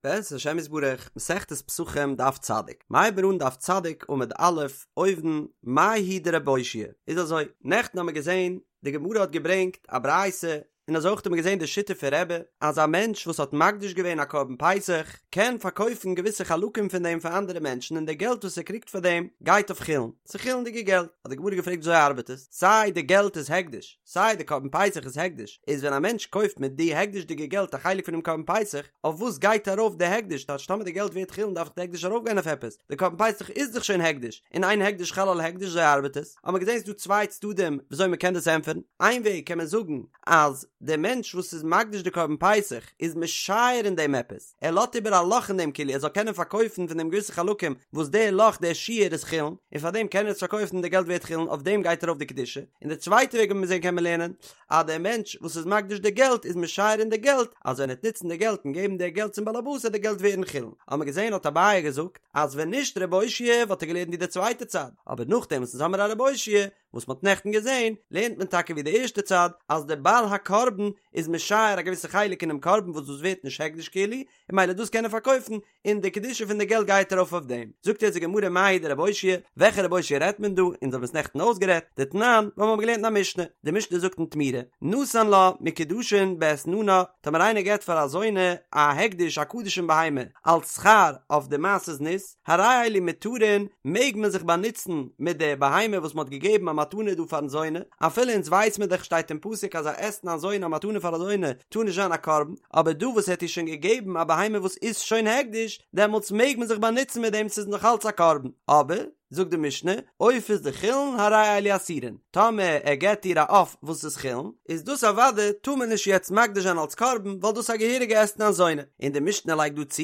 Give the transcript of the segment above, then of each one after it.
בעזרת השם יתברך, מסכת פסחים דף צדיק, מ'הייבט אן דף צדיק עמוד א', אויבן, מאי היא דרבי אושעיא איז אזוי, נעכטן האמיר געזען, די גמרא האט געברענגט א ברייתא, און אזוי אויך האט מען געזען די שיטה פון רבי, אז א מענטש וואס האט מקדיש געווען א קרבן פסח, קען פארקויפן געוויסע חלקים פון דעם פאר אנדערע מענטשן און די געלט וואס ער קריגט פאר דעם גייט אויף חולין, ס'איז חולין'דיגע געלט, האט די גמרא געפרעגט וויאזוי ארבעט עס, סיי די געלט איז הקדש, סיי די קרבן פסח איז הקדש, איז ווען א מענטש קויפט מיט די הקדש'דיגע געלט א חלק פונעם קרבן פסח, אויף וואס גייט ארויף די הקדש, טייטש טאמער די געלט ווערט חולין דארף דאך די הקדש ארויפגיין אויף עפעס, די קרבן פסח איז דאך שוין הקדש, און אין הקדש חל על הקדש אזוי ארבעט עס, האט מען געזען ס'איז דא צוויי צדדים וויאזוי מען קען דאס ענטפערן, איין וועג קען מען זאגן אז דער מענטש וואס איז מקדיש די קרבן פסח איז משייר אין דעם עפעס, ער לאזט איבער א לאך אין דעם כאילו ער זאל קענען פארקויפן פון דעם געוויסע חלקים וואס דער לאך דער שיור איז חולין, און פאר דעם קען ער עס פארקויפן און די געלט ווערט חולין אויף דעם גייט ארויף די קדושה, און די צווייטע וועג ווי מיר זעהן קען מען לערנען אז דער מענטש וואס איז מקדיש די געלט איז משייר אין די געלט אז ווען ער וועט נוצן די געלט און געבן די געלט צום בעלעבאס וועט די געלט ווערן חולין, האט מען געזעהן האט אביי געזאגט אז ווען נישט רבי אושעיא וואלט ער געלערנט ווי די צווייטע צד, אבער נאכדעם וואס אונז האמיר א רבי אושעיא וואס מ'האט נעכטן געזען, לערנט מען טאקע ווי די ערשטע צד, אז דער בעל הקרבן איז משייר א געוויסע חלק אינעם קרבן וואס דאס ווערט נישט הקדש כאילו, און ממילא דאס קען ער פארקויפן, און די קדושה פון די געלט גייט ארויף אויף דעם. זאגט יעצט די גמרא מאי היא דרבי אושעיא, וועלכע רבי אושעיא רעדט מען דא, אונז האבן עס נעכטן אויסגערעדט, דתנן, ווייל מ'האט געלערנט אין א משנה, די משנה זאגט אין תמורה, נתן לה מוקדשין באתננה, טאמער איינער געבט פאר א זונה א הקדש א קדשים בהמה אלס שכר אויף די מעשה זנות, הרי אלו מותרין, מעג מען זיך באנוצן מיט די בהמה וואס מען האט געגעבן א מתנה דא פארן זונה, אפילו אונז ווייס מען דאך שטייט אין פסוק אז א אתנן זונה א מתנה פאר א זונה טאר נישט זיין א קרבן, אבער דא וואס ער האט איר שוין געגעבן א בהמה וואס איז שוין הקדש, דעמאלטס מעג מען זיך באנוצן מיט דעם ס'איז נאך אלץ א קרבן, אבער, זאגט די משנה, עופות דחולין הרי אלו אסורין, טאמער ער געבט איר א עוף וואס איז חולין, איז דאס אוודאי טאר מען נישט יעצט מקדיש זיין אלס קרבן ווייל דאס איז א געהעריגע אתנן זונה, און די משנה לייגט דא צו,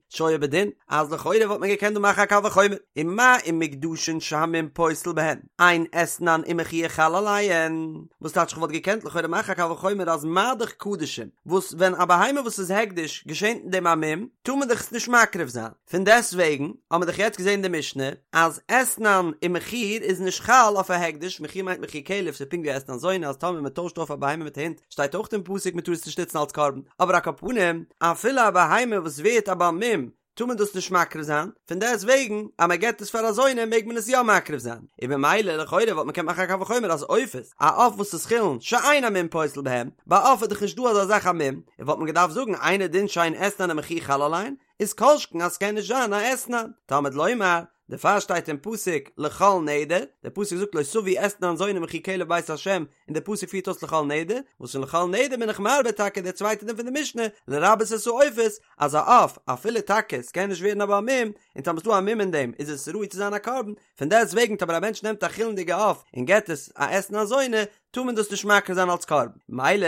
שהיה בדין, אז לכאורה וואלט מען געקענט דא מאכן א קל וחומר, ומה אם מוקדשין שהמום פוסל בהן, אין אתנן ומחיר חל עליהן, וואס טייטש כ'וואלט געקענט לכאורה מאכן א קל וחומר אז מה דאך קדשים, וואס ווען א בהמה וואס איז הקדש געשענט אין דעם א מום, טאר מען דאך עס נישט מקריב זיין. פון דעסט וועגן האבן מיר דאך יעצט געזען די משנה אז אתנן ומחיר איז נישט חל אויף א הקדש, מחיר מיינט מחיר כלב, ס'איז פונקט ווי אתנן זונה אז טאמער מ'טוישט אויף א בהמה מיט א הונט שטייט אויך אין פסוק מ'טאר עס נישט נוצן אלס קרבן, אבער על כל פנים אפילו א בהמה וואס ווערט א בעל מום טאר מען דאס נישט מקריב זיין, פון דעסט וועגן אז מען געבט עס פאר א זונה מעג מען עס יא מקריב זיין, און במילא לכאורה וואלט מען געקענט מאכן א קל וחומר אז עופות, א עוף וואס איז חולין שאין המום פוסל בהם, ביי עוף איז דאך נישט דא אזא זאך א מום, און וואלט מען געדארפט זאגן אינו דין שאין אתנן ומחיר חל עליהן, איז כל שכן אז ס'קען נישט זיין א אתנן, תלמוד לומר, דערפאר שטייט אין פסוק לכל נדר, דער פסוק זאגט לא תביא אתנן זונה ומחיר כלב בית השם, און דער פסוק פירט אויס לכל נדר, וואס פון לכל נדר בין איך מרבה טאקע דער צווייטער דין פון די משנה, לרבות את העופות, אז א עוף, אפילו טאקע ס'קען נישט ווערן א בעל מום, און טאמער ס'דא א מום אין דעם איז עס ראוי צו זיין א קרבן, פון דעסט וועגן טאמער א מענטש נעמט א חולין'דיגע עוף און געט עס א אתנן זונה, טאר מען דאס נישט מקריב זיין אלס קרבן. מילא,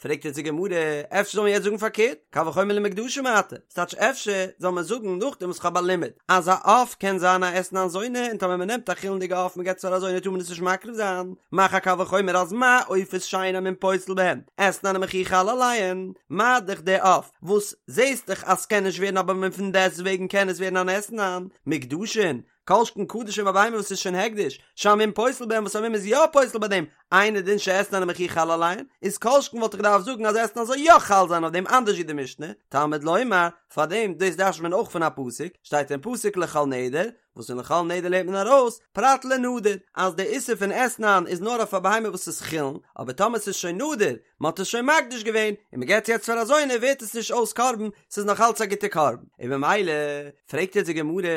פרעגט יעצט די גמרא, אפשר זאל מען יעצט זאגן פארקערט, קל וחומר למוקדשים מעתה, ס'טייטש אפשר זאל מען זאגן נאכדעם וואס כ'האב א לימוד אז א עוף קען זיין א אתנן זונה און טאמער מ'נעמט א חולין'דיגע עוף מ'געט עס פאר א זונה טאר מען עס נישט מקריב זיין, מאך א קל וחומר אז מה עופות שאין המום פוסל בהן, אתנן ומחיר חל עליהן, מה דאך די עוף וואס זעהסט דאך אז ס'קען נישט ווערן א בעל מום פון דעסטוועגן קען עס ווערן אן אתנן, מוקדשין, כל שכן קדשים א בהמה וואס איז שוין הקדש, שהמום פוסל בהם וואס א מום איז יא פוסל ביי דעם, אינו דין שאתנן ומחיר חל עליהן, איז כל שכן וואלט איך געדארפט זאגן אז אתנן זאל יא חל זיין אויף דעם אנדערש ווי די משנה, תלמוד לומר, פאר דעם דאס דרש'נט מען אויך פון א פסוק, שטייט אין פסוק לכל נדר, וואס פון לכל נדר לערנט מען ארויס, פרט לנדור, אז די איסור פון אתנן איז נאר אויף א בהמה וואס איז חולין, אבער טאמער ס'איז שוין נדור, מען האט עס שוין מקדיש געווען, און מען געבט יעצט פאר א זונה ווערט עס נישט אויס קרבן, ס'איז נאך אלץ א גוטע קרבן, און במילא פרעגט יעצט די גמרא,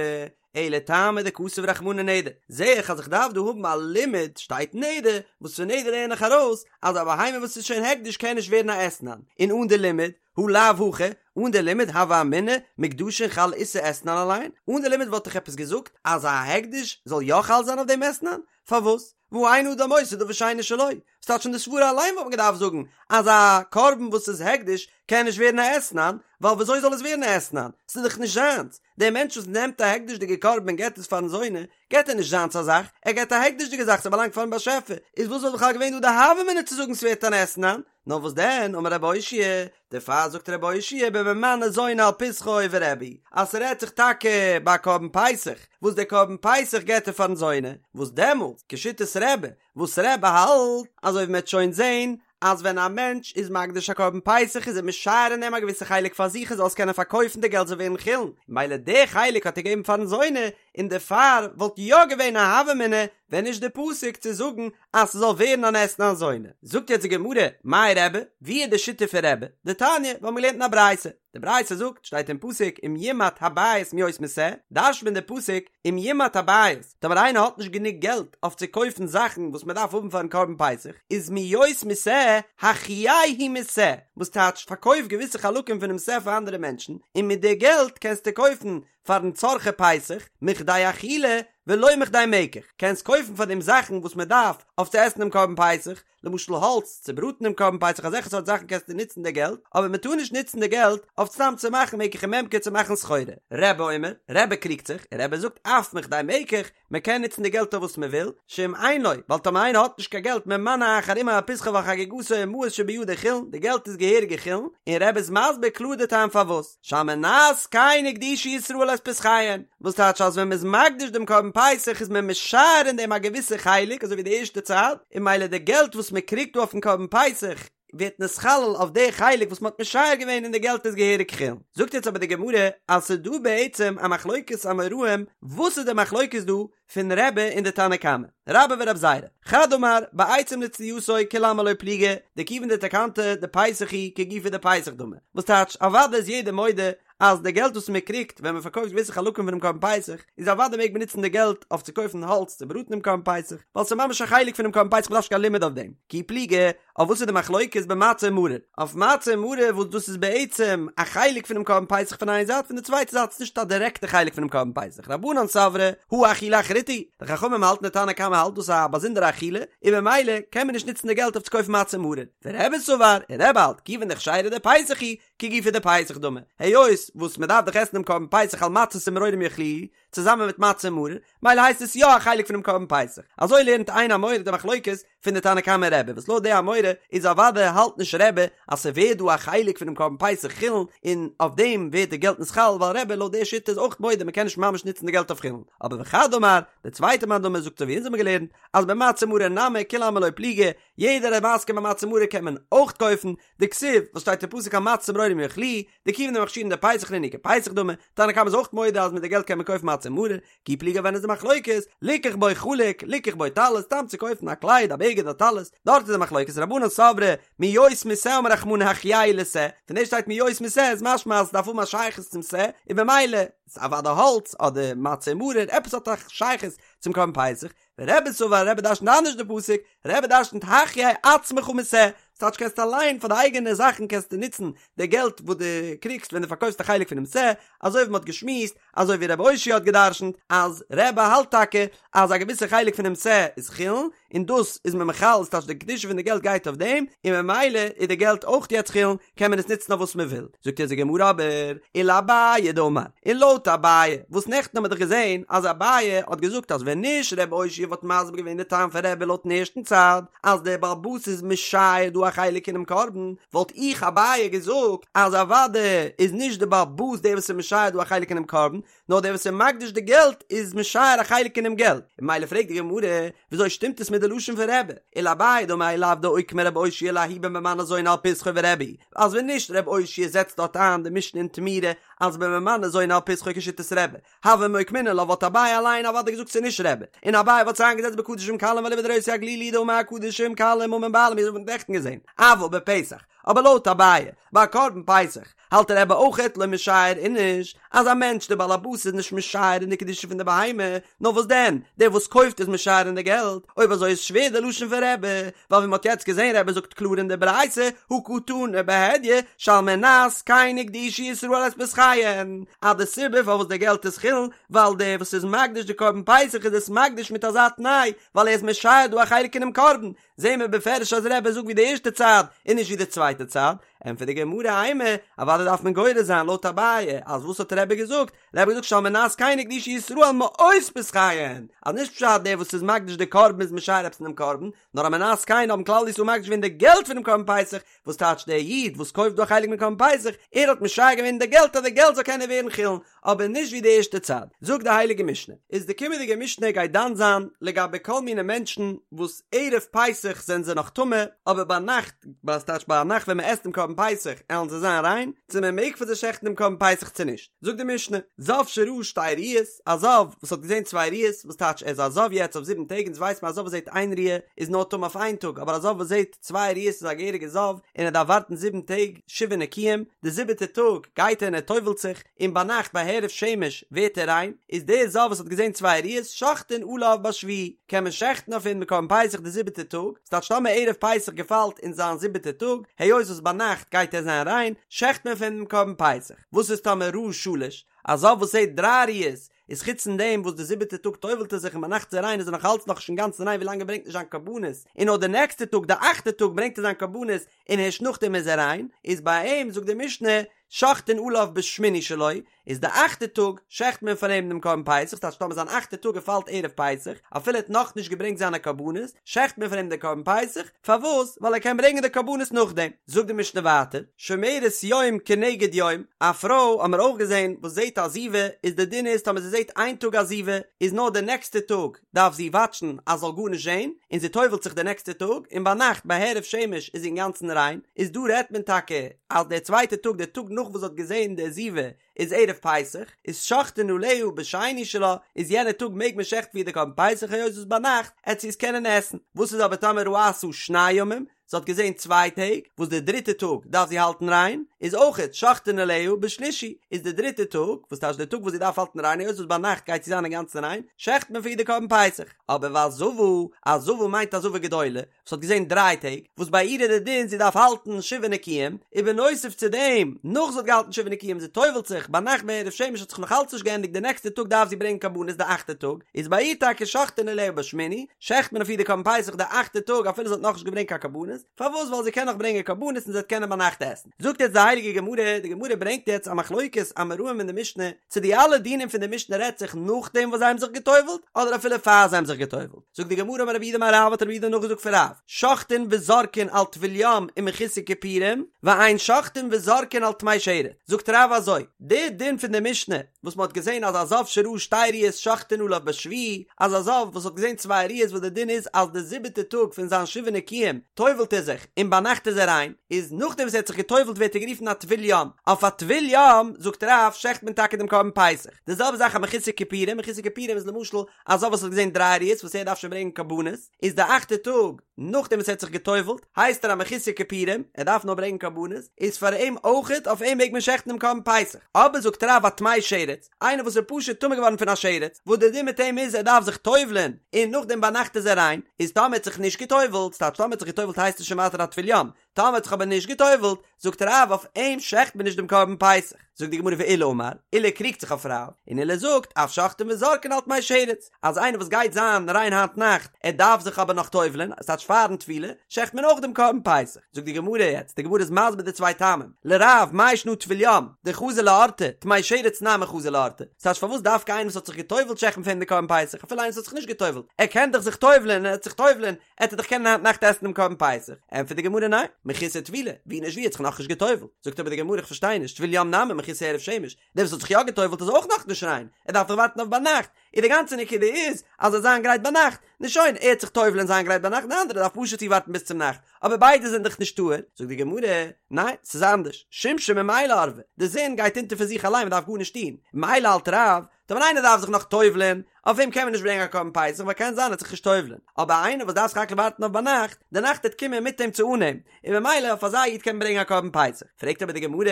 אלא טעמא דכתב רחמנא נדר, זעה איך אז איך דארף דא האבן א לימוד, שטייט נדר, וואס פון נדר לערן איך ארויס אז א בהמה וואס איז שוין הקדש קען נישט ווערן א אתנן, און אן די לימוד, הא לאו הכי, אן די לימוד הוה אמינא מוקדשין חל איסור אתנן עליהן, אן די לימוד וואלט איך עפעס געזאגט אז א הקדש זאל יא חל זיין אויף דעם אתנן? פארוואס? והא אין אדם עושה דבר שאינו שלו, ס'טייטש פון די סברה אליין וואלט מען געדארפט זאגן אז א קרבן וואס איז הקדש קען נישט ווערן א אתנן, ווייל וויאזוי זאל עס ווערן א אתנן? ס'איז דאך נישט זיינס, דער מענטש וואס נעמט א הקדש'דיגע קרבן און געבט עס פארן זונה, געבט ער נישט זיינס א זאך, ער געבט א הקדש'דיגע זאך, ס'באלאנגט פארן באשעפער, איז וואס וואלט בכלל געווען דא די הוה אמינא צו זאגן ס'ווערט אן אתנן? נאר וואס דען, אמר רבי אושעיא, דערפאר זאגט רבי אושעיא בממנה זונה על פסחו ורבי, אז ס'רעדט זיך טאקע ביי א קרבן פסח, וואס דער קרבן פסח געבט ער פארן זונה, וואס דעמאלטס, כשיטת רבי, וואס רבי האלט, אזוי ווי מ'עט שוין זען, אז ווען א מענטש איז מקדיש א קרבן פסח איז ער משייר אין דעם א געוויסע חלק פאר זיך ער זאל עס קענען פארקויפן די געלט זאל ווערן חולין, מילא די חלק האט ער געגעבן פארן זונה, און דערפאר וואלט יא געווען א הוה אמינא ווען נישט די פסוק צו זאגן אז ס'זאל ווערן אן אתנן זונה. זאגט יעצט די גמרא, מאי רבי, ווי איז די שיטה פון רבי? דתניא, מיר האבן געלערנט אין א ברייתא, די ברייתא זאגט, שטייט אין פסוק אם ימעט הבית מהיות משה, דרש'נט מען די פסוק אם ימעט הבית, טאמער איינער האט נישט גענוג געלט אויף צו קויפן זאכן וואס מען דארף האבן פארן קרבן פסח, איז מהיות משה, החייהו משה, וואס טייטש פארקויף געוויסע חלקים פונעם שה פאר אנדערע מענטשן, און מיט די געלט קענסטו קויפן פארן צרכי פסח, מכדי אכילה ולא מכדי מקח, קענסט קויפן פאר דעם זאכן וואס מען דארף אויף צו עסן דעם קרבן פסח, למשל האלץ צו בראטן דעם קרבן פסח אזעלכע סארט זאכן קענסטו נוצן די געלט, אבער מען טאר נישט נוצן די געלט אויף סתם צו מאכן מקח וממכר צו מאכן סחורה. רבי אומר, רבי קריגט זיך, און רבי זאגט אף מכדי מקח, מען קען נוצן די געלט אויף וואס מען וויל, שאם אין לו, ווייל טאמער איינער האט נישט קיין געלט ממנה אחר עמו על פסחו ועל חגיגתו ומעות שבידו חולין, די געלט איז געהעריגע חולין, און רבי איז מסביר קלאר די טעם פארוואס. שעל מנת כן הקדישו ישראל את פסחיהן, וואס טייטש אז ווען מ'איז מקדיש דעם קרבן פסח איז מען משייר אין דעם א געוויסע חלק אזוי ווי די ערשטע צד, און מילא די געלט וואס מ'קריגט דא אויפן קרבן פסח ווערט נתחלל אויף די חלק וואס מ'האט משייר געווען און די געלט איז געהעריג חולין. זאגט יעצט אבער די גמרא אז ס'איז דא בעצם א מחלוקת אמוראים, וואס איז די מחלוקת דא פון רבי און די תנא קמא, רבה ורב זירא, חד אמר, בעצים לצלייתו כולי עלמא לא פליגי, דכיון דתקנתא דפסח היא כגופא דפסח דמי, וואס טייטש, אוודאי איז יעדער מודה אז די געלט וואס מען קריגט ווען מען פארקויפט געוויסע חלקים פונעם קרבן פסח, איז אוודאי מעג מען נוצן די געלט אויף צו קויפן האלץ צו בראטן דעם קרבן פסח, ווייל ס'איז ממש א חלק פונעם קרבן פסח מ'דארף נישט קיין לימוד אויף דעם, כי פליגי, אויף וואס איז די מחלוקת במצה ומרור? אויף מצה און מרור וואס דאס איז בעצם א חלק פונעם קרבן פסח פון איין זייט, פון די צווייטע זייט איז נישט א דירעקטע חלק פונעם קרבן פסח, רבנן סברי הא אכילה אחריתי היא, די חכמים האלטן די תנא קמא האלט דאס איז א באזונדערע אכילה, און במילא קען מען נישט נוצן די געלט אויף צו קויפן מצה און מרור, ורבי סבר, און רבי האלט, כיוון דכשרה דפסח היא, כגופא דפסח דמי, היות וואס מען דארף דאך עסן דעם קרבן פסח על מצות ומרורים יאכלוהו, צוזאמען מיט מצה און מרור, מילא הייסט עס יא א חלק פונעם קרבן פסח. אזוי לערנט איין אמורא די מחלוקת פון די תנא קמא און רבי, וואס לויט די אמורא איז אוודאי האלט נישט רבי אז ס'ווערט דא א חלק פונעם קרבן פסח חולין און אויף דעם ווערט די געלט נתחלל ווייל רבי לויט די שיטה איז אויך מודה מ'קען נישט ממש נוצן די געלט אויף חולין. אבער וחד אמר, די צווייטע מאן דאמר זאגט אזוי ווי אונז האבן געלערנט אז במצה ומרור נמי כולי עלמא לא פליגי, יעדער איז מסכים ביי מצה ומרור קען מען אויך קויפן, דכתיב, וואס שטייט אין פסוק על מצות ומרורים יאכלוהו, דכיון דמכשירין דפסח נינהו כפסח דמי, תנא קמא איז אויך מודה אז מיט די געלט קען מען קויפן מצה ומרור, כי פליגי ווען איז די מחלוקת, ליקח בו חלוק, ליקח בו טלית, סתם צו קויפן א קלייד, א בגד, א טלית, דארט איז די מחלוקת, רבנן סברי, מהיות משה אמר רחמנא החייהו לשה, פון דעם שטייט מהיות משה איז משמע אז עס דארף האבן א שייכות צום שה, און במילא, איז אוודאי האלץ, אדער מצה ומרור, עפעס האט א שייכות צום קרבן פסח, ורבי סבר רבי דרשנט אנדערש די פסוק, רבי דרשנט החיה עצמך משה, ס'טייטש קענסט אליין פאר די אייגענע זאכן קענסטו נוצן די געלט וואס דו קריגסט ווען דו פארקויפסט א חלק פונעם שה, אזוי ווי מ'האט געשמועסט, אזוי ווי רבי אושעיא האט געדרשנט אז רבי האלט טאקע אז א געוויסע חלק פונעם שה איז חולין, און דאס איז מען מחלל, ס'טייטש די קדושה פון די געלט גייט אויף דעם, און ממילא איז די געלט אויך יעצט חולין, קען מען עס נוצן אויף וואס מען וויל, זאגט אונז די גמרא אבער, ולאביי דאמר, און לויט אביי, וואס נעכטן האבן מיר דאך געזען אז אביי האט געזאגט אז ווען נישט ר' אושעיא וואלט מסביר געווען די טעם פון רבי לויטן ערשטן צד, אז דער בעל הבית איז משייר דא א חלק אינעם קרבן, וואלט איך אביי געזאגט אז אוודאי איז נישט די בעל הבית דער וואס איז משייר דא א חלק אינעם קרבן, נאר דער וואס איז מקדיש די געלט איז משייר א חלק אינעם געלט, און ממילא פרעגט די גמרא, וויאזוי שטימט עס מיט די לשון פון רבי, ולאביי דאמר אי לאו דאוקמה רבי אושעיא לההוא בממנה זונה על פסחו ורבי היא, אז ווען נישט רבי אושעיא זעצט דארט איין די משנה אין תמורה אז בממנה זונה על פסחו כשיטת רבי, הוה מוקמינן לה וואלט אביי אליין אוודאי געזאגט ס'איז נישט רבי, און אביי וואלט עס איינגעזעצט בקדשים קלים ואליבא דר' יוסי הגלילי דאמר הקדשים קלים ממון בעלים ווי מ'האט נעכטן געזען, אבל בפסח, אבער לויט אביי, ביי קרבן פסח, האלט רבי אויכעט לא משייר איניש, אז א מענטש דער בעל הבית איז נישט משייר אין די קדושה פון די בהמה, נאר וואס דען, דער וואס קויפט איז משייר אין די געלט, אויב אזוי איז שווער די לשון פון רבי, ווייל ווי מ'האט יעצט געזען רבי זאגט קלאר אין די ברייתא, הא קתני בהדיא, שעל מנת כן הקדישו ישראל את פסחיהן, אז די סיבה פארוואס די געלט איז חולין, ווייל דער וואס איז מקדיש די קרבן פסח איז עס מקדיש מיט אזא תנאי, ווייל ער איז משייר דא א חלק אינעם קרבן, זעהן מיר בפירוש אז רבי זאגט ווי די ערשטע צד און נישט ווי די צווייטע צד, ענטפערט די גמרא אימא, אוודאי דארף מען גורס זיין לויט אביי, אז וואס האט רבי געזאגט? רבי האט געזאגט שעל מנת כן הקדישו ישראל מעות פסחיהן, אז נישט פשט דער וואס איז מקדיש די קרבן איז משייר עפעס אינעם קרבן, נאר על מנת כן האבן כלל ישראל מקדיש געווען די געלט פונעם קרבן פסח, וואס טייטש דער איד וואס קויפט דא א חלק מיט קרבן פסח, ער האט משייר געווען די געלט אז די געלט זאל קענען ווערן חולין, אבער נישט ווי די ערשטע צד, זאגט די הייליגע משנה, איז די קומענדיגע משנה גייט דן זיין לגבי כל מיני מענטשן וואס ערב פסח זענען זיי נאך טמא, אבער ביינאכט, וואס טייטש ביינאכט ווען מען עסט דעם קרבן פסח עלן זיי זיין ריין, צו מען מעג פאר זיי שעכטן דעם קרבן פסח צו נישט, זאגט די משנה, זב שראה שתי ראיות, א זב וואס האט געזען צוויי ראיות, וואס טייטש ער איז א זב יעצט אויף זיבן טעג, אונז ווייסט מען א זב וואס זעט איין ראיה איז נאר טמא אויף איין טאג, אבער א זב וואס זעט צוויי ראיות איז א געהעריגע זב און ער דארף ווארטן זיבן טעג, שבעה נקיים, די זיבעטע טאג גייט ער און ער טובל'ט זיך, און ביינאכט ביי הערב שמש ווערט ער ריין, איז דער זב וואס האט געזען צוויי ראיות שוחטין עליו בשביעי, קען מען שעכטן אויף אים די קרבן פסח די זיבעטע טאג, ס'טייטש טאמער ערב פסח געפאלט אין זיין זיבעטע טאג, היות וואס ביינאכט גייט ער זיין ריין, שעכט מען אויף אים דעם קרבן פסח. וואס איז טאמער ראה שלש, א זב וואס זעט דריי ראיות, איז חוץ פון דעם וואס די זיבעטע טאג טובל'ט ער זיך און ביינאכט איז ער ריין איז ער נאך אלץ נאכנישט אינגאנצן ריין ווילאנג ער ברענגט נישט זיין קרבנות, און נאר די נעקסטע טאג די אכטע טאג ברענגט ער זיין קרבנות און הערשט נאכדעם איז ער ריין, איז ביי אים זאגט די משנה שוחטין עליו בשמיני שלו, איז די אכטע טאג שעכט מען פאר אים דעם קרבן פסח, ס'טייטש טאמער זיין אכטע טאג געפאלט ערב פסח, אפילו ער האט נאכנישט געברענגט זיינע קרבנות, שעכט מען פאר אים די קרבן פסח, פארוואס? ווייל ער קען ברענגען די קרבנות נאכדעם. זאגט די משנה ווייטער, שומרת יום כנגד יום, א פרוי האמיר אויך געזען וואס זעט א זיבה, איז די דין איז טאמער זי זעט איין טאג א זיבה, איז נאר די נעקסטע טאג דארף זי וואטשן אז זאל גארנישט זען, און זי טובל'ט זיך די נעקסטע טאג, און ביינאכט ביי הערב שמש איז זי אינגאנצן ריין, איז דא רעדט מען טאקע אז דער צווייטע טאג, דער טאג נאך וואס זי האט געזען די זיבה, איז ערב פסח, איז שוחטין עליה בשני שלה, איז יענע טאג מעג מען שעכטן פאר איר די קרבן פסח היות וואס ביינאכט עט זי עס קענען עסן, וואס איז אבער טאמער ראתה שני ימים, זי האט געזען צוויי טעג, וואס די דריטע טאג דארף זי האלטן ריין, איז אויכעט שוחטין עליה בשלישי, איז די דריטע טאג, וואס טייטש די טאג וואס זי דארף האלטן ריין היות וואס ביינאכט גייט זי זיין אינגאנצן ריין, שעכט מען פאר איר די קרבן פסח, אבער והזבה, א זבה מיינט א זבה גדולה, וואס האט געזען דריי טעג, וואס ביי איר איז די דין זי דארף האלטן שבעה נקיים, ובנוסף צו דעם, נאך זי האט געהאלטן שבעה נקיים זי טובל'ט זיך, ביינאכט ביי הערב שמש האט זיך נאך אלץ נישט געענדיגט די נעקסטע טאג דארף זי ברענגען קרבנות די אכטע טאג, איז ביי איר טאקע שוחטין עליה בשמיני, שעכט מען אויף איר די קרבן פסח די אכטע טאג אפילו זי האט נאכנישט געברענגט קיין קרבנות, פארוואס ווייל זי קען נאך ברענגען קרבנות און זי וועט קענען ביינאכט עסן. זאגט יעצט די הייליגע גמרא, די גמרא ברענגט יעצט א מחלוקת אמוראים אין די משנה, צו די אלע דינים פון די משנה רעדט זיך נאכדעם וואס זיי האבן זיך גע'טובל'ט, אדער אפילו פאר זיי האבן זיך גע'טובל'ט. זאגט די גמרא אמר רב יהודה אמר רב האט רב יהודה נאכגעזאגט פון רב, שוחטין וזורקין על טבול יום ומחוסר כיפורים, ואין שוחטין וזורקין על טמא שרץ, זאגט רב אזוי, די דין פון די משנה וואס מען האט געזען אז א זב שראה שתי ראיות שוחטין עליו בשביעי, אז א זב וואס האט געזען צוויי ראיות וואס די דין איז אז די זיבעטע טאג פון זיין שבעה נקיים טובל'ט ער זיך און ביינאכט איז ער ריין, איז נאכדעם וואס ער האט זיך געטובל'ט ווערט ער גערופן א טבול יום, אויף א טבול יום זאגט רב שעכט מען טאקע דעם קרבן פסח, די זעלבע זאך א מחוסר כיפורים, מחוסר כיפורים איז למשל א זב וואס האט געזען דריי ראיות וואס ער דארף שוין ברענגען קרבנות, איז די אכטע טאג נאכדעם וואס ער האט זיך גע'טובל'ט, הייסט ער א מחוסר כיפורים, ער דארף נאר ברענגען קרבנות, איז פאר אים אויכעט, אויף אים מעג מען שעכטן דעם קרבן פסח. אבער זאגט רב א טמא שרץ, איינער וואס איז פשוט טמא געווארן פון א שרץ, וואס דער דין מיט אים איז ער דארף זיך טובל'ען, און נאכדעם ביינאכט איז ער ריין, איז טאמער ער האט זיך נישט גע'טובל'ט, ס'טייטש טאמער ער האט זיך גע'טובל'ט הייסט עס שוין ווייטער א טבול יום, טאמער האט זיך אבער נישט גע'טובל'ט, זאגט רב אויף אים שעכט מען נישט דעם קרבן פסח. זאגט די גמרא ועולא אמר, עולא קריגט זיך אויף רב, און עולא זאגט, אף שוחטין וזורקין על טמא שרץ, אז איינער וואס גייט זיין ריין היינט נאכט, ער דארף זיך אבער נאך טובל'ען, עס טייטש פארן טבילה, שעכט מען אויך דעם קרבן פסח. זאגט די גמרא יעצט, די גמרא איז מסביר די צוויי טעמים, לרב, מאי שנא טבול יום, דחזי לאורתא, טמא שרץ נמי חזי לאורתא, ס'טייטש פארוואס דווקא איינער וואס האט זיך גע'טובל'ט שעכט מען פאר אים די קרבן פסח, אפילו איינער וואס האט זיך נישט גע'טובל'ט, ער קען דאך זיך טובל'ען און ער וועט זיך טובל'ען, עט ער דאך קענען היינט נאכט עסן דעם קרבן פסח, ענטפערט די גמרא ניין, מחוסר טבילה, ווי נישט ווי האט זיך נאכנישט גע'טובל'ט, זאגט אבער די גמרא איך פארשטיי נישט, טבול יום נמי מחוסר הערב שמש, דער וואס האט זיך יא גע'טובל'ט איז אויך נאכנישט ריין, ער דארף דאך ווארטן אויף ביינאכט, און די גאנצע נקודה איז אז ער זאל זיין גרייט ביינאכט, נו שוין, ער עט זיך טובל'ען און זיין גרייט ביינאכט, די אנדערע דארף פשוט צו ווארטן ביז צום נאכט, אבער ביידע זענען דאך נישט טהור, זאגט די גמרא, ניין, ס'איז אנדערש, שמשא ממילא ערבא, די זון גייט אונטער פון זיך אליין מען דארף גארנישט טון, ממילא האלט רב, טאמער איינער דארף זיך נאך טובל'ען, אויף אים קען מען נישט ברענגען א קרבן פסח ווייל קען זיין ער וועט זיך נישט טובל'ען, אבער איינער וואס דארף סך הכל ווארטן אויף ביינאכט, די נאכט וועט קומען מיט אים צו אן אים, און ממילא אויף אזא איד קען מען ברענגען א קרבן פסח. פרעגט אבער די גמרא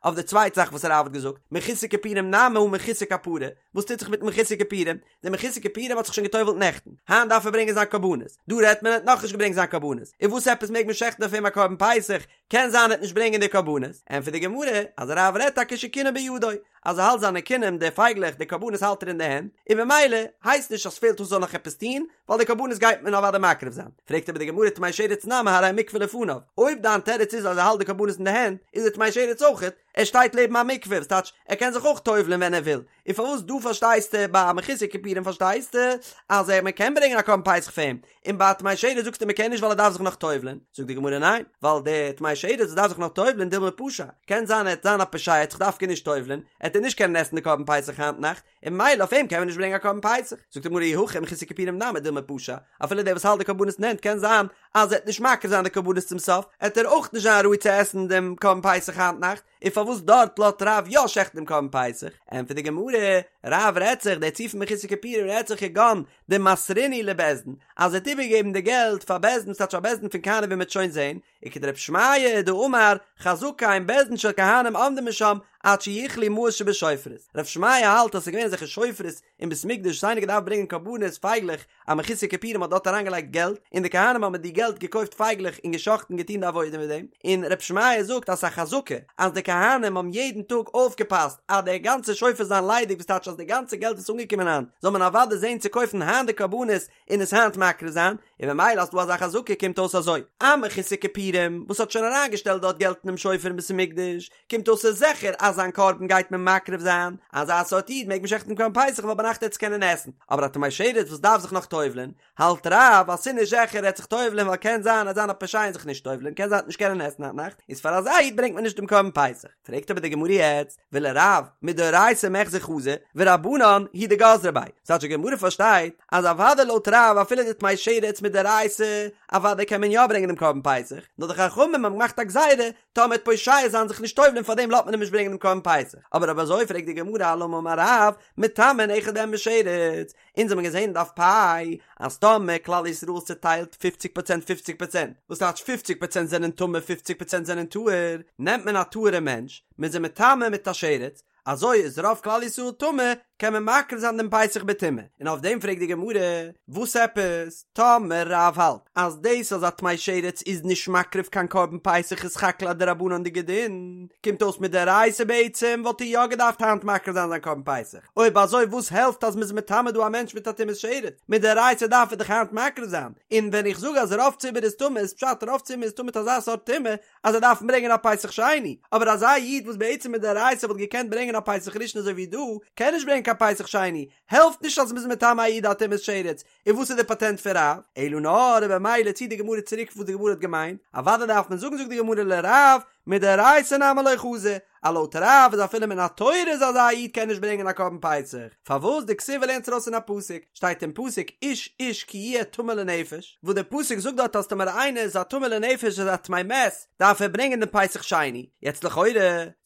אויף די צווייטע זאך וואס רב האט געזאגט, מחוסר כיפורים נמי הא מחוסר כפרה, וואס טוט זיך מיט מחוסר כיפורים? דער מחוסר כיפורים האט זיך שוין געטובל'ט נעכטן, היינט דארף ער ברענגען זיין קרבנות, דא רעדט מען ער האט נאכנישט געברענגט זיין קרבנות, און וואס עפעס מעג מען שעכטן אויף אים א קרבן פסח, קען זיין ער וועט נישט ברענגען די קרבנות, ענטפערט די גמרא אז רב רעדט טאקע שקינן בידו, אז ער האלט זיינע קינים, די פייגלעך, די קרבנות האלט ער אין די הענט, און במילא הייסט נישט אז ס'פעלט אויס זאל נאך עפעס טון, ווייל די קרבנות גייט מען אוודאי מקריב זיין. פרעגט אבער די גמרא טמא שרץ נמי הרי מקווה לפניו, אויב דיין תירוץ איז אז ער האלט די קרבנות אין די הענט, איז דער טמא שרץ אויכעט, ער שטייט לעבן א מקווה, וואס טייטש ער קען זיך אויך טובל'ען ווען ער וויל, און פארוואס דא פארשטייסטו ביי א מחוסר כיפורים פארשטייסטו אז ער מען קען ברענגען א קרבן פסח פאר אים, און ביי א טמא שרץ זאגסטו מען קען נישט ווייל ער דארף זיך נאך טובל'ען, זאגט די גמרא ניין, ווייל דער טמא שרץ וואס דארף זיך נאך טובל'ען דילמא פשע, קען זיין ער וועט זיין א פושע ער וועט זיך דווקא נישט טובל'ען, עט ער נישט קענען עסן די קרבן פסח היינט נאכט, און ממילא אויף אים קען מען נישט ברענגען א קרבן פסח, זאגט די גמרא אי הכי מחוסר כיפורים נמי דילמא פשע, אפילו דער וואס האלט די קרבנות אין הענט קען זיין אז ער וועט נישט מקריב זיין די קרבנות צום סוף, עט ער אויך נישט זיין ראוי צו עסן דעם קרבן פסח היינט נאכט, און פארוואס דארט לאזט רב יא שעכטן דעם קרבן פסח? ענטפערט די גמרא, רב רעדט זיך, דער ציור פון מחוסר כיפורים רעדט זיך כגון דמסרינהו לבית דין, אז ער האט איבערגעגעבן די געלט פאר בית דין, ס'טייטש פאר בית דין פון כהנים ווי מ'וועט שוין זען, וכדרב שמעיה דאמר חזקה אין בית דין של כהנים עומדים משם עד שיכלו מעות שבשופרות, רב שמעיה האלט אז ס'איז געווען אזעלכע שופרות אין בית המקדש וואס איינער געדארפט ברענגען קרבנות פייגלעך א מחוסר כיפורים האט דארט אריינגעלייגט געלט און די כהנים האבן מיט די געלט געקויפט פייגלעך און גע'שחט'ן געטון די עבודה מיט דעם, און רב שמעיה זאגט אז ס'איז א חזקה אז די כהנים האבן יעדן טאג אויפגעפאסט אז די גאנצע שופר זיין ליידיג וואס טייטש אז די גאנצע געלט וואס איז אנגעקומען היינט זאל מען אוודאי זען צו קויפן היינט די קרבנות און עס היינט מקריב זיין, און ממילא אז ס'דא אזא חזקה קומט אויס אזוי, א מחוסר כיפורים וואס האט שוין אריינגעשטעלט דארט געלט אינעם שופר אין בית המקדש, קומט אויס ס'איז זיכער אז זיין קרבן גייט מען מקריב זיין, אזא סארט איד מעג מען שעכטן קרבן פסח ווייל ביינאכט עט עס קענען עסן, אבער א טמא שרץ וואס דארף זיך נאך טובל'ען, האלט רב אז ס'איז נישט זיכער ער עט זיך טובל'ען ווייל קען זיין ער עט זיין א פושע און זיך נישט טובל'ען קען זיין ער עט נישט קענען עסן היינט נאכט, איז פאר אזא איד ברענגט מען נישט דעם קרבן פסח. פרעגט אבער די גמרא יעצט, ולרב מדאורייתא מיחזא חזי, ורבנן הוא דגזרו ביה, ס'טייטש די גמרא פארשטייט אז אוודאי לויט רב אפילו די טמא שרץ מדאורייתא אוודאי קען מען יא ברענגען דעם קרבן פסח, נאר די חכמים האבן געמאכט א גזירה טאמער עט פושע זיין זיך נישט טובל'ען פארדעם לאזט מען אים נישט ברענגען דעם קרבן פסח, אבער אויב אזוי פרעגט די גמרא אלמה אמר רב, מטמאין אחד מהם בשרץ, אונז האבן געזען אין דף פ' אז טאמער כלל ישראל איז צוטיילט פופציג פראצענט פופציג פראצענט, וואס טייטש פופציג פראצענט זענען טמא פופציג פראצענט זענען טהור, נעמט מען א טהור'ע מענטש, מען איז אים מטמא מיט א שרץ, אזוי איז רוב כלל ישראל טמא, קען מען מקריב זיין דעם פסח בטומאה, און אויף דעם פרעגט די גמרא, וואס עפעס, טאמער רב האלט אז דאס אז א טמא שרץ איז נישט מקריב קיין קרבן פסח איז סך הכל א דרבנן'דיגע דין, קומט אויס מדאורייתא בעצם וואלט ער יא געדארפט היינט מקריב זיין זיין קרבן פסח, אויב אזוי וואס העלפט אז מ'איז מטמא דא א מענטש מיט א טומאת שרץ, מדאורייתא דארף ער דאך היינט מקריב זיין, און ווען איך זאג אז רוב ציבור איז טמא איז פשט רוב ציבור איז טמא מיט אזא סארט טומאה אז זיי דארפן ברענגען א פסח שני, אבער אזא איד וואס בעצם מדאורייתא וואלט געקענט ברענגען א פסח ראשון אזוי ווי דא, קען נישט ברענגען קיין פסח שני, העלפט נישט אז מ'איז מטמא א איד א טומאת שרץ, און וואס איז די פאטענט פון רב? אלא נאר און במילא ציט די גמרא צוריק וואס די גמרא האט געמיינט, אוודאי דארף מען זאגן זאגט די גמרא לרב, מדאורייתא נמי לא חזי, אז לויט רב איז אפילו מן התורה איז אזא איד קען נישט ברענגען א קרבן פסח, פארוואס דכתיב לערנט ארויס אין א פסוק, שטייט אין פסוק איש איש כי יהיה טמא לנפש, וואס דער פסוק זאגט דארט אז טאמער איינער איז א טמא לנפש איז א טמא מת דארף ער ברענגען דעם פסח שני, יעצט לכאורה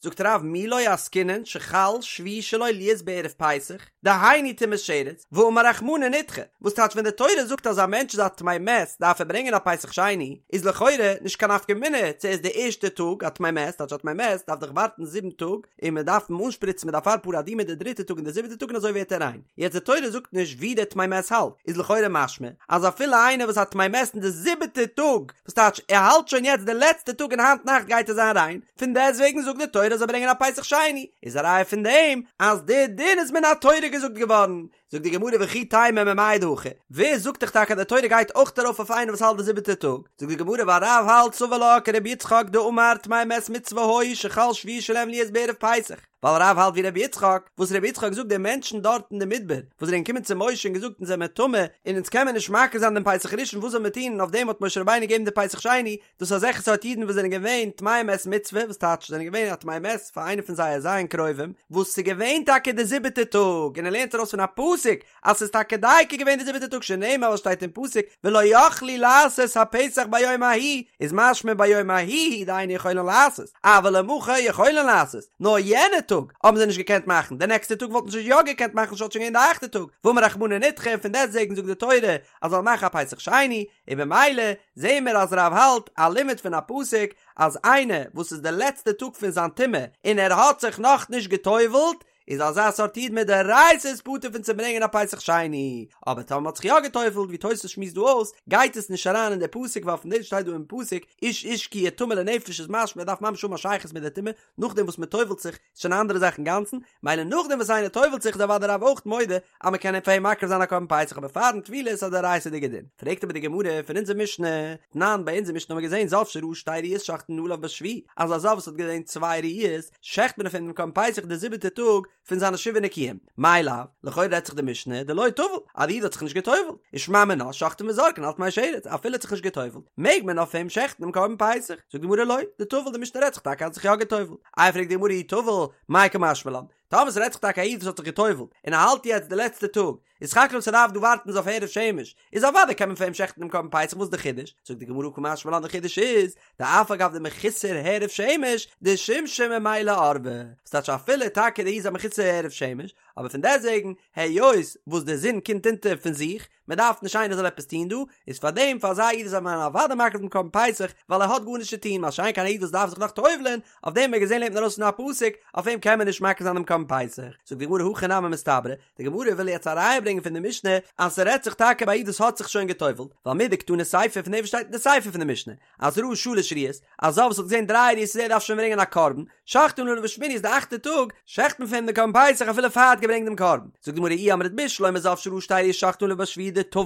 זאגט רב מי לא עסקינן שחל שביעי שלו להיות בערב פסח, דהיינו טומאת שרץ, ואמר רחמנא נדחה, וואס טייטש ווען די תורה זאגט אז א מענטש איז א טמא מת דארף ער ברענגען א פסח שני, איז לכאורה נישט קיין נפקא מינה צו ער איז די ערשטע טאג א טמא מת, טייטש א טמא מת דארף דאך ווארטן זיבן טאג און מען דארף אים אנשפריצן מיט אפר פרה אדומה די דריטע טאג און די זיבעטע טאג און אזוי ווערט ער ריין, יעצט די תורה זאגט נישט ווי דער טמא מת האלט, איז לכאורה משמע אז אפילו איינער וואס א טמא מת אין די זיבעטע טאג, וואס טייטש ער האלט שוין יעצט די לעצטע טאג און היינט נאכט גייט ער זיין ריין, פון דעסטוועגן זאגט די תורה זאל ברענגען א פסח שני, איז א ראיה פון דעם אז די דין איז מן התורה געזאגט געווארן, זאגט די גמרא וכי תימא ממאי דהכא, ווער זאגט דיך טאקע אז די תורה גייט אויך ארויף אויף איינער וואס האלט די זיבעטע טאג, זאגט די גמרא ווייל רב האלט סבר לה כרבי יצחק דאמר טמאי מת מצוה היו שחל שביעי שלהם להיות בערב פסח, ווייל רב האלט ווי רבי יצחק, וואס רבי יצחק זאגט די מענטשן דארט אין די מדבר וואס זענען געקומען צו משה און געזאגט אונז זעמער טמא און אונז קען מען נישט מקריב זיין דעם פסח ראשון וואס זאל מען טון און אויף דעם האט משה רבינו געגעבן די פסח שני, דאס איז אזעלכע סארט אידן וואס זענען געווען טמאי מת מצוה, וואס טייטש זענען געווען א טמא מת פאר איינער פון זייער ז' קרובים, וואס ס'איז געווען טאקע די זיבעטע טאג, און ער לערנט ארויס פון א פסוק אז ס'איז טאקע דייקא געווען די זיבעטע טאג שנאמר וואס שטייט אין פסוק ולא יכלו לעשות הפסח ביום ההוא, איז משמע ביום ההוא דאין יכולין לעשות, אבל למחר יכולין לעשות, נאר יענע טאג האבן זיי נישט געקענט מאכן, די נעקסטע טאג וואלטן זיי יא געקענט מאכן ס'וואלט שוין געווען די אכטע טאג, ואמר רחמנא נדחה און פון דעסטוועגן זאגט די תורה אז זאל מאכן א פסח שני, און במילא זעהן מיר אז רב האלט א לימוד פון א פסוק אז איינער וואס איז די לעצטע טאג פון זיין טומאה און ער האט זיך נאך נישט גע'טובל'ט. איז אזא סארט איד מדאורייתא איז פטור פון צו ברענגען א פסח שני, אבער טאמער מ'האט זיך יא גע'טובל'ט ווי תוס' שמועסט דא אויס, גייט עס נישט אריין אין די פסוק ווייל פון דעם שטייט דא אין פסוק איש איש כי יהיה טמא לנפש איז משמע ער דארף ממש האבן א שייכות מיט די טומאה, נאכדעם וואס מ'טובל'ט זיך איז שוין א אנדערע זאך אינגאנצן, מילא נאכדעם וואס איינער טובל'ט זיך איז אוודאי רב אויך מודה אז מ'קען פאר אים מקריב זיין א קרבן פסח אבער פארן טבילה איז א דאורייתא'דיגע דין. פרעגט אבער די גמרא פון אונזער משנה, תנן ביי אונזער משנה האבן מיר געזען זב שראה שתי ראיות שוחטין עליו בשביעי, אז א זב וואס האט געזען צוויי ראיות שעכט מען אויף אים דעם קרבן פסח די זיבעטע טאג פון זיינע שבעה נקיים, מאי לאו, לכאורה רעדט זיך די משנה דלא טבל, אז די איד האט זיך נישט גע'טובל'ט, ושמע מינה שוחטין וזורקין על טמא שרץ, אפילו האט זיך נישט גע'טובל'ט, מעג מען אויף אים שעכטן דעם קרבן פסח, זאגט די גמרא לא, דטבל די משנה רעדט זיך טאקע אז האט זיך יא גע'טובל'ט, איי פרעגט די גמרא אי טבל, מאי קא משמע לן, טאמער ס'רעדט זיך טאקע א איד וואס האט זיך גע'טובל'ט, און ער האלט יעצט די לעצטע טאג, איז סך הכל ס'דארף דא ווארטן איז אויף הערב שמש, איז אוודאי קען מען פאר אים שעכטן דעם קרבן פסח וואס איז די חידוש? זאגט די גמרא קא משמע לן די חידוש איז, דאף על גב דמחוסר הערב שמש, דשימשא ממילא ערבא, וואס טייטש אפילו טאקע דער איד איז א מחוסר הערב שמש, אבער פון דעסטוועגן, היות וואס די זון קומט אונטער פון זיך, מען דארף נישט איינער זאל עפעס טון דא, איז פאר דעם פאר אזא איד איז מען אוודאי מקריב דעם קרבן פסח, ווייל ער האט גארנישט צו טון, מה שאין כן א איד וואס דארף זיך נאך טובל'ען, אויף דעם האט מען געזען לערנט מען ארויס פון א פסוק, אויף אים קען מען נישט מקריב זיין דעם קרבן פסח. זאגט די גמרא הכי נמי מסתברא, די גמרא וויל יעצט א ראיה ברענגען פון די משנה אז ס'רעדט זיך טאקע ביי א איד וואס האט זיך שוין גע'טובל'ט, ווייל מדקתני סיפא פון דעם וואס שטייט אין די סיפא פון די משנה אז ראה שלש ראיות, א זב וואס האט געזען דריי ראיות איז ער דארף שוין ברענגען א קרבן, שוחטין עליו בשמיני איז די אכטע טאג, שעכט מען פאר אים די קרבן פסח אפילו פאר ער האט געברענגט דעם קרבן. זאגט די גמרא אי אמרת בשלמא זב שראה שתי ראיות שוחטין עליו בשביעי דטבל,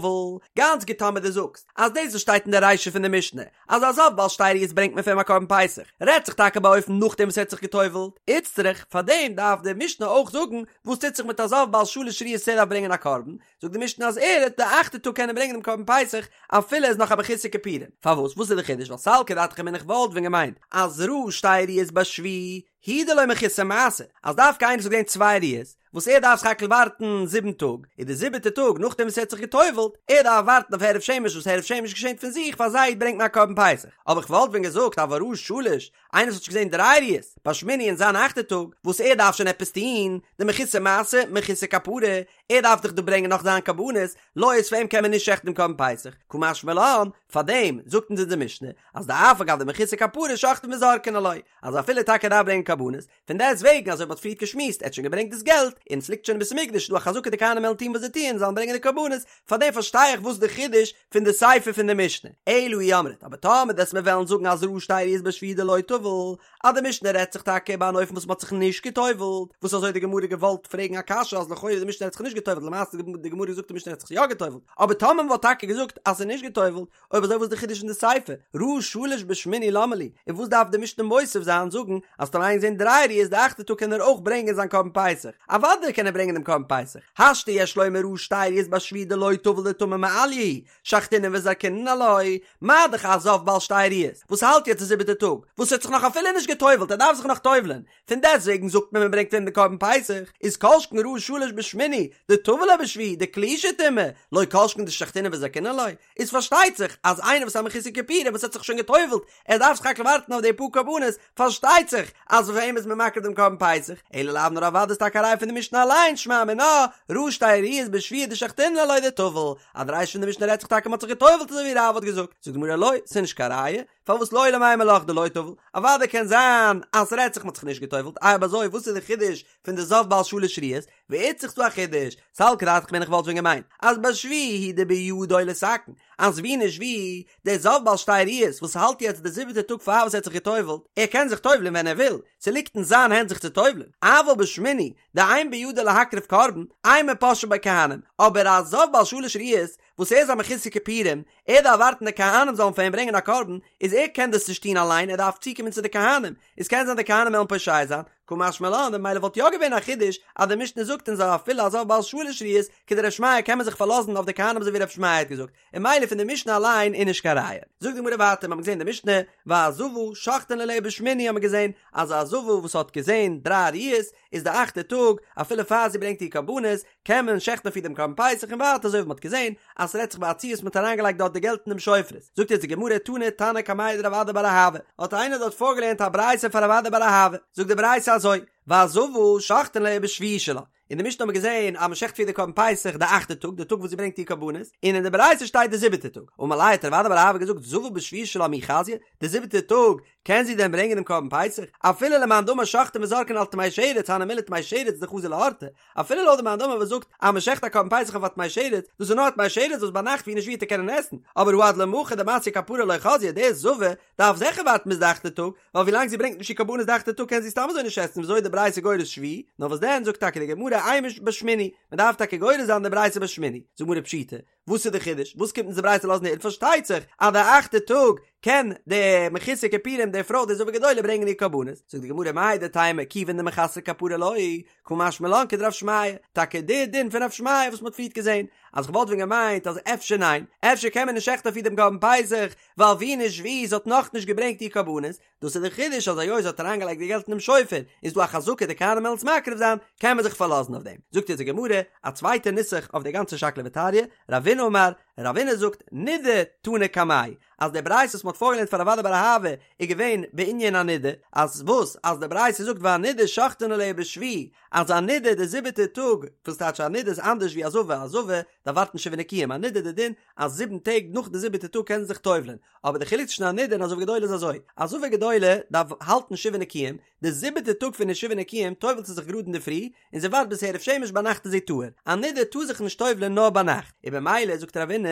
גאנץ גוט טאמער דו זאגסט אז דאס וואס שטייט אין די רישא פון די משנה אז א זב בעל שתי ראיות ברענגט מען פאר אים א קרבן פסח, רעדט זיך טאקע באופן נאכדעם וואס ער האט זיך גע'טובל'ט, איצטריך, פארדעם דארף די משנה אויך זאגן וואס טוט זיך מיט א זב בעל שלש ראיות ער דארף ברענגען א קרבן, זאגט די משנה אז ער וועט די אכטע טאג קענען ברענגען דעם קרבן פסח אפילו ער איז נאך א מחוסר כיפורים, פארוואס? וואס איז די חידוש? ווייל סלקא דעתך אמינא איך וואלט ווען געמיינט אז ראה שתי ראיות בשביעי הוא דלא מחוסר מעשה, אז דווקא איינער וואס האט געזען צוויי ראיות, וואס ער דארף סך הכל ווארטן זיבן טאג, איז די זיבעטע טאג נאכדעם וואס ער האט זיך גע'טובל'ט, ער דארף ווארטן אויף הערב שמש וואס הערב שמש געשענט פון זיך פאר אזא איד ברענגט מען א קרבן פסח, אבער איך וואלט ווען געזאגט אבל ראה שלש, איינער וואס האט שוין געזען דריי ראיות בשמיני אין זיין אכטע טאג, וואס ער דארף שוין עפעס טון, דמחוסר מעשה, מחוסר כפרה, ער דארף דאך דא ברענגען נאך זיין קרבנות, לא איז פאר אים קען מען נישט שעכטן דעם קרבן פסח, קא משמע לן, פארדעם זאגט אונז אונזער משנה, אז דאף על גב דמחוסר כפרה שוחטין וזורקין עילויה, אז אפילו טאקע ער דארף ברענגען קרבנות, פון דעסט וועגן אזוי ווי מ'האט פריערט געשמועסט, ער האט שוין געברענגט דאס געלט, און עס ליגט שוין אין בית המקדש, איז דא א חזקה די כהנים וועלן טון וואס זיי טוען, זאלן ברענגען די קרבנות, פאר דעם פארשטיי איך וואס די חידוש פון די סיפא פון די משנה. אלא אי אמרת, אבער טאמער דו'סט מיר וועלן זאגן אז ראה שתי ראיות בשביעי דלא טבל, אז די משנה רעדט זיך טאקע ביי אן אופן וואס מ'האט זיך נישט גע'טובל'ט, וואס אזוי האט די גמרא געוואלט פרעגן א קשיא אז לכאורה די משנה רעדט זיך נישט גע'טובל'ט למעשה האט די גמרא געזאגט די משנה רעדט זיך יא גע'טובל'ט, אבער טאמער מ'וואלט טאקע געזאגט אז ס'איז נישט גע'טובל'ט, אויב אזוי וואס איז די חידוש אין די סיפא? ראה שלש בשמיני למה לי? און וואס דארף די משנה מוסיף זיין זאגן אז טאמער איינער געזען דריי ראיות די אכטע טאג קען ער אויך ברענגען זיין קרבן פסח? אוודאי קען ער ברענגען דעם קרבן פסח, השתא יש לומר ראה שתי ראיות בשביעי דלא טבל דטמא מעליא הוא, שחטינן וזרקינן עילויה, מה דאך א זב בעל שתי ראיות וואס האלט יעצט די זיבעטע טאג, וואס האט זיך נאך אפילו נישט גע'טובל'ט ער דארף זיך נאך טובל'ען, פון דעסטוועגן זאגט מען מען ברענגט אים די קרבן פסח, איז כל שכן ראה שלש בשמיני, דטבל ליה בשביעי, דקלישא טומאה, לא כל שכן דשחטינן וזרקינן עילויה, איז פארשטייט זיך אז איינער וואס איז א מחוסר כיפורים וואס האט זיך שוין גע'טובל'ט, ער דארף סך הכל ווארטן אויף די פאר קרבנות, פארשטייט זיך אז פאר אים איז מען מקריב דעם קרבן פסח, אלא לאו נאר אוודאי איז טאקע א ראיה פון די משנה אליין, שמע מינה, ראה שתי ראיות בשביעי דשחטינן עילויה דטבל, אז די רישא פון די משנה רעדט זיך טאקע מען האט זיך גע'טובל'ט אזוי ווי רב האט געזאגט, זאגט די גמרא לא, ס'איז נישט קיין ראיה, פארוואס לעולם אימא לך דלא טבל, אוודאי קען זיין אז ס'רעדט זיך מ'האט זיך נישט גע'טובל'ט, איי אויב אזוי וואס איז די חידוש פון די זב בעל שלש ראיות, ואיצטריך ס'דא א חידוש, סלקא דעתך אמינא איך וואלט ווען געמיינט אז בשביעי הוא דבידו לתקן, אז ווי נישט ווי, דער זב בעל שתי ראיות וואס האלט יעצט די זיבעטע טאג פאר וואס ער האט זיך גע'טובל'ט, ער קען זיך טובל'ען ווען ער וויל, ס'ליגט אין זיין הענט זיך צו טובל'ען, אבל בשמיני דאין בידו להקריב קרבן, אימא פושעין ביה כהנים, אבער א זב בעל שלש ראיות וואס ער איז א מחוסר כיפורים, ער דארף ווארטן די כהנים זאלן פאר אים ברענגען א קרבן, איז ער קען דאס נישט טון אליין, ער דארף צוקומען צו די כהנים, איז קען זיין די כהנים וועלן פושע זיין, קא משמע לן, ממילא וואלט יא געווען א חידוש אז די משנה זאגט אונז אז אפילו א זב בעל שלש ראיות, כדר' שמעיה קען מען זיך פארלאזן אויף די כהנים אזוי ווי ר' שמעיה האט געזאגט, און ממילא פון די משנה אליין איז נישט קיין ראיה. זאגט די גמרא ווייטער, מיר האבן געזען די משנה, והזבה שוחטין עליה בשמיני האבן מיר געזען אז א זבה וואס האט געזען דריי ראיות איז די אכטע טאג, אפילו פאר זי ברענגט איר קרבנות, קען מען שעכטן אויף איר דעם קרבן פסח און ווייטער אזוי ווי מ'האט געזען אז ס'רעדט זיך ביי א ציור וואס מ'האט אריינגעלייגט דארט די געלט אין דעם שופרות. זאגט יעצט די גמרא תני תנא קמיה דרב אדא בר אהבה, האט איינער דארט פארגעלערנט א ברייתא פאר רב אדא בר אהבה, זאגט די ברייתא אזוי, והזבה שוחטין עליה בשביעי שלה. אין די משנה האט מען געזען אז מען שעכט פאר איר די קרבן פסח די אכטע טאג, די טאג וואס זי ברענגט איר קרבנות, און אין די ברייתא שטייט די זיבעטע טאג. אמר ליה האט רב אדא בר אהבה געזאגט זבה בשביעי שלה מי חזיא, די זיבעטע טאג קען זי דען ברענגען דעם קרבן פסח? אפילו למאן דאמר שוחטין וזורקין על טמא שרץ הני מילי טמא שרץ דחזי לאורתא, אפילו לויט די מאן דאמר וואס זאגט אז מען שעכט א קרבן פסח אויף א טמא שרץ, דאס איז נאר א טמא שרץ וואס ביינאכט ווי נישט ווי וועט ער קענען עסן, אבער הא עד למחר דמתיא כפרה לא חזיא, די זבה דארף זיכער ווארטן ביז די אכטע טאג, ווייל ווילאנג זי ברענגט נישט איר קרבנות די אכטע טאג קען זי סתם אזוי נישט עסן וויאזוי איז די ברייתא גורס שביעי, נאר וואס דען זאגט טאקע די גמרא אימא בשמיני, מען דארף טאקע גורס זיין די ברייתא בשמיני, זאגט די גמרא פשיטא, וואס איז די חידוש? וואס קומט אונז די ברייתא לאזן הערן? פארשטייט זיך אז די אכטע טאג קען די מחוסר כיפורים די פרוי די זבה גדולה ברענגען איר קרבנות, זאגט די גמרא מהו דתימא כיוון דמחסרא כפרה לא, קא משמע לן כדרב שמעיה, טאקע די דין פון רב שמעיה וואס מען האט פריערט געזען, אז כ'וואלט ווען געמיינט אז אפשר ניין, אפשר קען מען נישט שעכטן אויף איר דעם קרבן פסח, ווייל ווי נישט ווי זי האט נאכנישט געברענגט איר קרבנות, דאס איז די חידוש אז היות זי האט אריינגעלייגט די געלט אינעם שופר איז דא א חזקה די כהנים וועלן עס מקריב זיין, קען מען זיך פארלאזן אויף דעם. זאגט יעצט די גמרא א צווייטע נוסח אויף די גאנצע שקלא וטריא, רבינא אמר, רבינא זאגט, נידה תנא קמיה, אז די ברייתא וואס מען האט פארגעלערנט פאר רב אדא בר אהבה איז געווען בענין א נידה, אז וואס? אז די ברייתא זאגט והנידה שוחטין עליה בשביעי, אז א נידה די זיבעטע טאג, וואס טייטש א נידה איז אנדערש ווי א זבה, א זבה דארף ווארטן שבעה נקיים, א נידה די דין אז זיבן טעג נאך די זיבעטע טאג קען זי זיך טובל'ען, אבער די חילוק צווישן א נידה און א זבה גדולה איז אזוי, א זבה גדולה דארף האלטן שבעה נקיים, די זיבעטע טאג פון די שבעה נקיים טובל'ט זי זיך גראד אינדערפרי, און זי ווארט ביז הערב שמש ביינאכט איז זי טהור, א נידה טאר זיך נישט טובל'ען נאר ביינאכט, און במילא זאגט רבינא,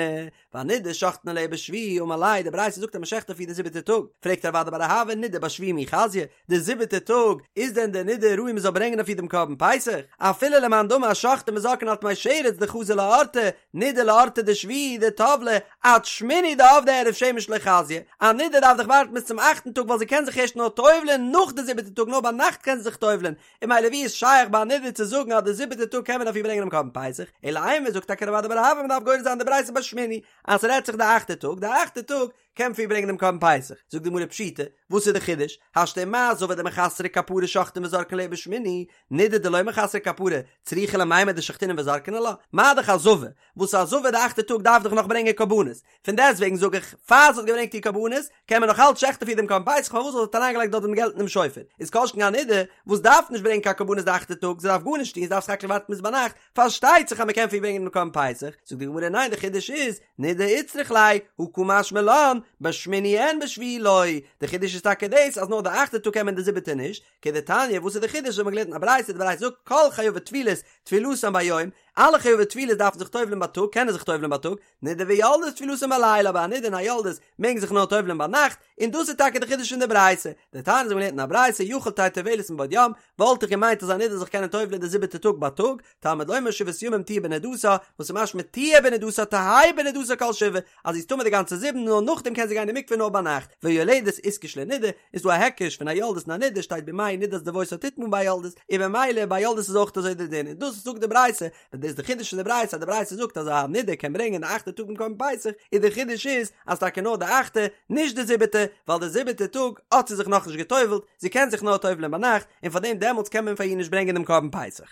והנידה שוחטין עליה בשביעי אמר ליה, די ברייתא זאגט אז מען שעכט אויף איר די זיבעטע טאג, פרעגט רב אדא בר אהבה נידה בשביעי מי חזיא, די זיבעטע טאג, איז דען די נידה ראוי מען זאל ברענגען אויף איר דעם קרבן פסח? אפילו למאן דאמר שוחטין וזורקין על טמא שרץ דחזי לאורתא, נידה לאורתא דשביעי דטבלה, עד שמיני דעבדא הערב שמש לא חזיא, א נידה דארף דאך ווארטן ביז צום אכטן טאג ווייל זי קען זיך ערשט נאר טובל'ען נאך די זיבעטע טאג נאר ביינאכט קען זי זיך טובל'ען, און ממילא ווי איז שייך ביי א נידה צו זאגן אז די זיבעטע טאג קען מען אויף איר ברענגען דעם קרבן פסח, אלא אימא זאגט טאקע רב אדא בר אהבה מען דארף גורס זיין די ברייתא בשמיני אז ס'רעדט זיך די אכטע טאג, די אכטע טאג קען מען אויף איר ברענגען דעם קרבן פסח, זאגט די גמרא פשיטא, וואס איז די חידוש, השתא ומה זבה דמחסרא כפרה שוחטין וזורקין עליה בשמיני, נידה דלא מחסרא כפרה, צריכא למימר דשחטינן וזרקין עלה, מה דאך א זבה, וואס א זבה די אכטע טאג דארף דאך נאך ברענגען קרבנות, פון דעסט וועגן זאג איך, פאר זי האט געברענגט איר קרבנות, קען מען נאך אלץ שעכטן אויף איר דעם קרבן פסח פארוואס ווייל זי האט אריינגעלייגט דארט דעם געלט אינעם שופר, איז כל שכן א נידה, וואס דארף נישט ברענגען קיין קרבנות די אכטע טאג, זי דארף גארנישט טון, זי דארף סך הכל ווארטן ביז ביינאכט, פארשטייט זיך אז מען קען אויף איר ברענגען דעם קרבן פסח, זאגט די גמרא ניין די חידוש איז, נידה איצטריך ליה, הא קא משמע לן, בשמיני אין בשביעי לא, די חידוש איז טאקע דאס אז נאר די אכטע טאג קען מען די זיבעטע נישט, כדתניא וואס איז די חידוש האט מען געלערנט אין א ברייתא די ברייתא זאגט כל חייבי טבילות טבילתן ביום, אלע חייבי טבילות דארפן זיך טובל'ן בייטאג קענען זיך טובל'ן בייטאג, נידה ויולדת טבילתן בלילה אבער א נידה און א יולדת מעגן זיך נאר טובל'ן ביינאכט, און דאס איז טאקע די חידוש פון די ברייתא, דתניא אזוי ווי מ'לערנט אין א ברייתא יכול תהא טובלת מבעוד יום, וואלט איך געמיינט אז א נידה זאל זיך קענען טובל'ן די זיבעטע טאג בייטאג, תלמוד לומר שבעת ימים תהיה בנדתה, וואס איז משמע תהיה בנדתה תהא בנדתה כל שבעה, אז זי איז טמא די גאנצע זיבן נאר נאכדעם קען זי גיין אין מקווה נאר ביינאכט, ויולדת איתקש לנידה, איז דא א היקש פון א יולדת און א נידה שטייט בימי נדת דותה תטמא ביי יולדת, און במילא ביי יולדת איז אויך אזוי די דין, און דאס זאגט די ברייתא, און דאס איז די חידוש פון די ברייתא אז די ברייתא זאגט אז א נידה קען ברענגען די אכטע טאג דעם קרבן פסח, און די חידוש איז אז טאקע נאר די אכטע, נישט די זיבעטע, ווייל די זיבעטע טאג האט זי זיך נאכנישט גע'טובל'ט, זי קען זיך נאר טובל'ען ביינאכט, און פארדעם דעמאלטס קען מען פאר איר נישט ברענגען דעם קרבן פסח.